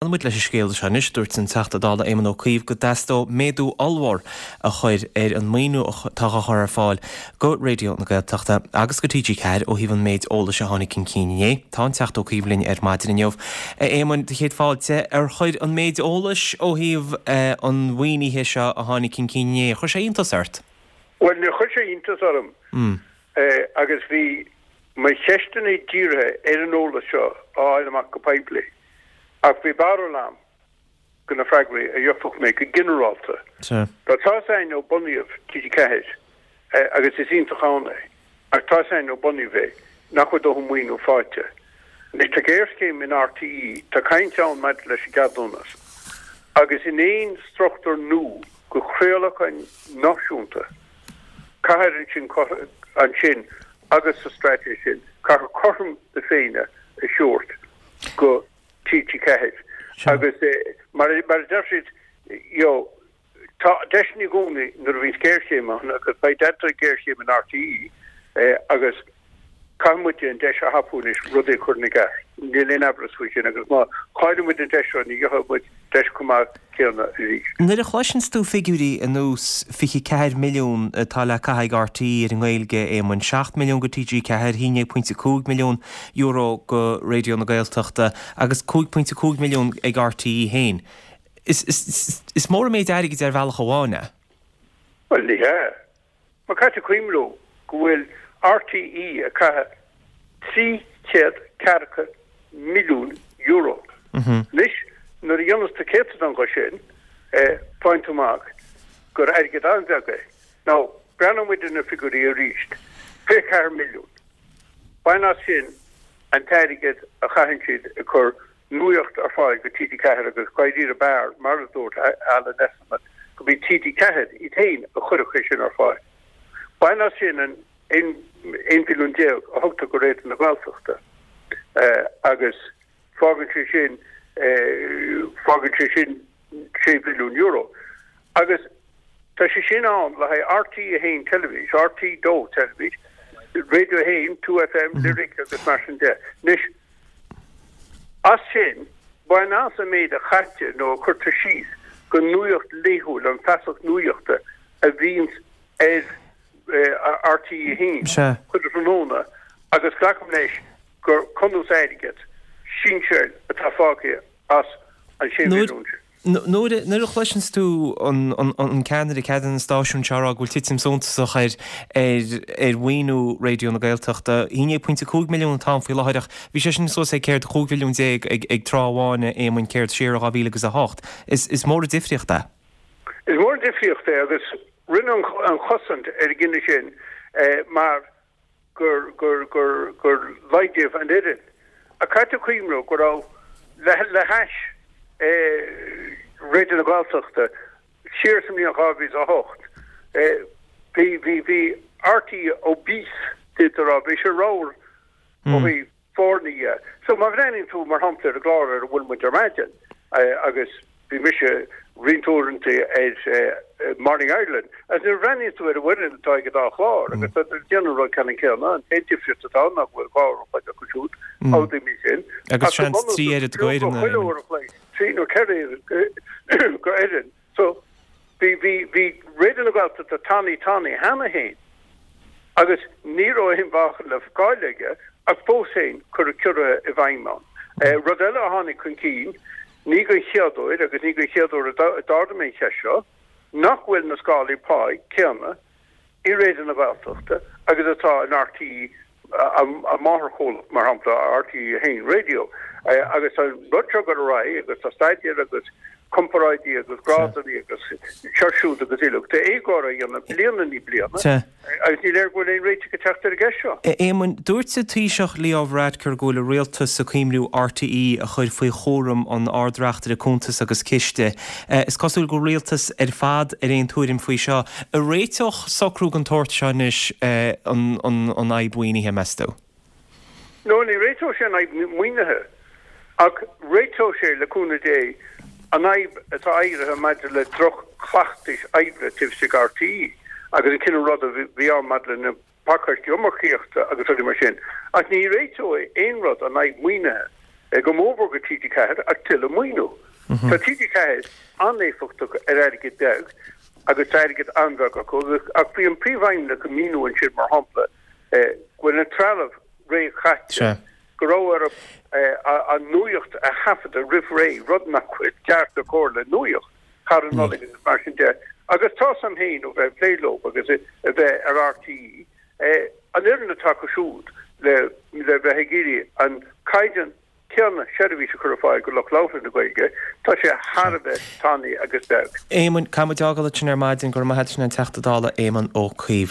Leanfaidh muid leis an scéal seo anois. Dúirt an Teachta Dála Éamon Ó Cuív go dteastódh méadú ollmhór a chur ar an maoiniú atá á chur ar fáil go Raidió na Gaeltachta agus go TG4 ó thaobh an méid eolais a tháinig chun cinn inné. Tá an Teachta Ó Cuív linn ar maidin inniu. A Éamoin, do chéad fáilte. Ar chuir an méid eolais ó thaobh an mhaoinithe seo a tháinig chun cinn inné, ar chuir sé iontas ort? Bhuel, níor chuir sé iontas orm agus bhí mo cheisteanna dírithe ar an eolas seo a fháil amach go poiblí. Ach bhí barúil a'm go na freagraí a gheobhadh mé go ginearálta. Sea. Tá tá's a'inn ó bunaíodh TG4, agus is iontach ann é, ach tá's a'inn ó bunaíodh é nach bhfuil dóthain maoiniú faighte. Anois tá géarchéim in RTÉ, tá caint ann maidir leis an gceadúnas, agus in aon struchtúr nua go chraolachán náisiúnta, caithfear ansin, ansin agus sa straitéis sin, caithfear cothrom na Féinne a thabhairt go TG4 agus mar a deir siad, you know, tá deiseanna i gcónaí nuair a bhíonns géarchéim ann agus beidh deirtear géarchéim in RTÉ agus caithfidh muid an deis a thapú anois rudaí a chur ina gceart. Níl aon amhras faoi sin agus má chailleann muid an deis seo ní gheobhaidh muid deis chomh maith céanna arís. Nuair a chloiseanns tú figiúirí ar nós 24 milliún atá le caitheamh ag RTÉ ar an nGaeilge, a Éamoin, 7 milliún go TG4, €11.5 milliún go Raidió na Gaeltachta agus 5.5 milliún ag RTÉ féin, is mór an méid airgid ar bhealach amháin é. Bhuel, ní hea. Mar caithfidh tú cuimhniú go bhfuil RTÉ ag caitheamh 300 ceathracha milliún euro. Anois, nuair a dhéanas tú céatadán dhe sin, faigheann tú amach gur airgead an-bheag é. Now, breathnóidh muid ar na figiúirí arís. 24 milliún. Bain as sin an t-airgead a chaitheann siad ag cur nuaíocht ar fáil go TG4 agus dáiríre b'fhearr, mar a dúirt Alan Esslemont, go mb'í TG4 iad féin a chuirfeadh é sin ar fáil. Bain as sin an 11 mhilliún a thugtar go Raidió na Gaeltachta agus fágann sé sin fágann sé sin €6 mhilliún. Agus tá sé sin ann le haghaidh RTÉ 1 Teilifís, RTÉ 2 Teilifís, Radio 1, 2FM, Lyric agus mar sin de. Anois, as sin, bain as an méid a chaitear nó a chuirtear síos go nuaíocht laethúil, an feasacht nuaíochta a bhíonns ar RTÉ 1 chuile thráthnóna agus glacaim leis gur cunús airgead sinseáil atá fágtha as an 6 mhilliún sin. Nuair a chloiseanns tú an ceannaire, ceannaire an stáisiúin seo ag rá go bhfuil titim suntasach ar ar mhaoiniú Raidió na Gaeltachta, 11.5 milliún atá ann faoi láthair ach bhí sé sin suas ag céard 15 mhilliún ag tráth amháin a Éamoinn céard siar i 2008. Is mór an difríocht é. Is mór an difríocht é agus rinneadh an chosaint ar an gcinneadh sin mar gur, gur, gur, gur laghdaíodh an fhoireann. Ach caithfidh tú cuimhniú go raibh, le, le hais Raidió na Gaeltachta siar sa mbliain 2008, bhí, bhí, bhí RTÉ obese, d'fhéadfá a rá, bhí sé ramhar ó thaobh foirne dhe. So má bhreathnaíonn tú, mar shampla, ar an gclár ar a bhfuil muid ar maidin, agus bhí mise roinnt uaireanta ar Morning Ireland, agus nuair a bhreathnaíonn tú ar an bhfoireann atá ag an dá chlár, agus tá siad ag déanamh an rud ceannann céanna, an t-aon difríocht atá ann ná go bhfuil 2 uair an chloig acu siúd, amhlaidh sin, Agus seans 3 oiread go fhoireann. Chuile uair an chloig, 3 nó 4 oiread go fhoireann. So, bhí, bhí, bhí Raidió na Gaeltachta tanaí tanaí cheana féin agus ní raibh aon mheáchan le fáil aige ach fós féin cuireadh ciorruithe i bhfeidhm ann. Rud eile a tháinig chun cinn, ní den chéad uair agus ní den chéad uair a d'ardaigh mé an cheist seo, nach bhfuil na scálaí páí céanna i Raidió na Gaeltachta agus atá in RTÉ, a máthairchomhlacht, mar shampla, RTÉ 1 Radio. Agus tá an rud seo ag dul ar aghaidh agus tá staidéir agus comparáidí agus grádanna agus seo siúd agus uilig. Tá éagóir á dhéanamh bliain i ndiaidh bliana agus ní léir go bhfuil aon réiteach ag teacht ar an gceist seo. A Éamoinn, dúirt an Taoiseach Leo Varadkar go bhfuil an rialtas ag cuimhniú RTÉ a chur faoi chúram an Ard-Reachtaire Cuntas agus Ciste. Is cosúil go bhfuil an rialtas ar fad ar aon tuairim faoi seo. An réiteodh socrú den tsórt seo anois an fhadhb mhaoinithe, meas tú? No, ní réiteodh sé an fhadhb maoinithe, ach réiteodh sé, le cúnamh Dé, an fhadhb atá éirithe maidir le droch-chleachtais oibre taobh istigh RTÉ agus an cineál ruda a bhí ann maidir le na pacáistí iomarcaíochta agus rudaí mar sin. Ach ní réiteoidh aon rud an fhadhb maoinithe. Go mórmhór go TG4 ach tuilleadh maoiniú. Tá TG4 an-éifeachtach ar airgead beag agus tá airgead an-bheag acu ach bhí an Príomhfheidhmeannach ag míniú ansin mar shampla go bhfuil an trealamh réchaite, go raibh orthu an nuaíocht a thaifeadadh roimh ré, rud nach bhfuil ceart ná cóir le nuaíocht thar an Nollaig agus mar sin de. Agus tá 's a'm féin ó bheith ag plé leo agus a bheith ar RTÉ, an fhoireann atá acu siúd le le bheith ag iarraidh an caighdeán céanna seirbhís a chur ar fáil go lucht labhartha na Gaeilge, tá sé thar a bheith tanaí agus beag. Éamoinn, caithfidh muid fhágáil ansin ar maidin. Go raibh maith a't, sin an Teachta Dála Éamon Ó Cuív.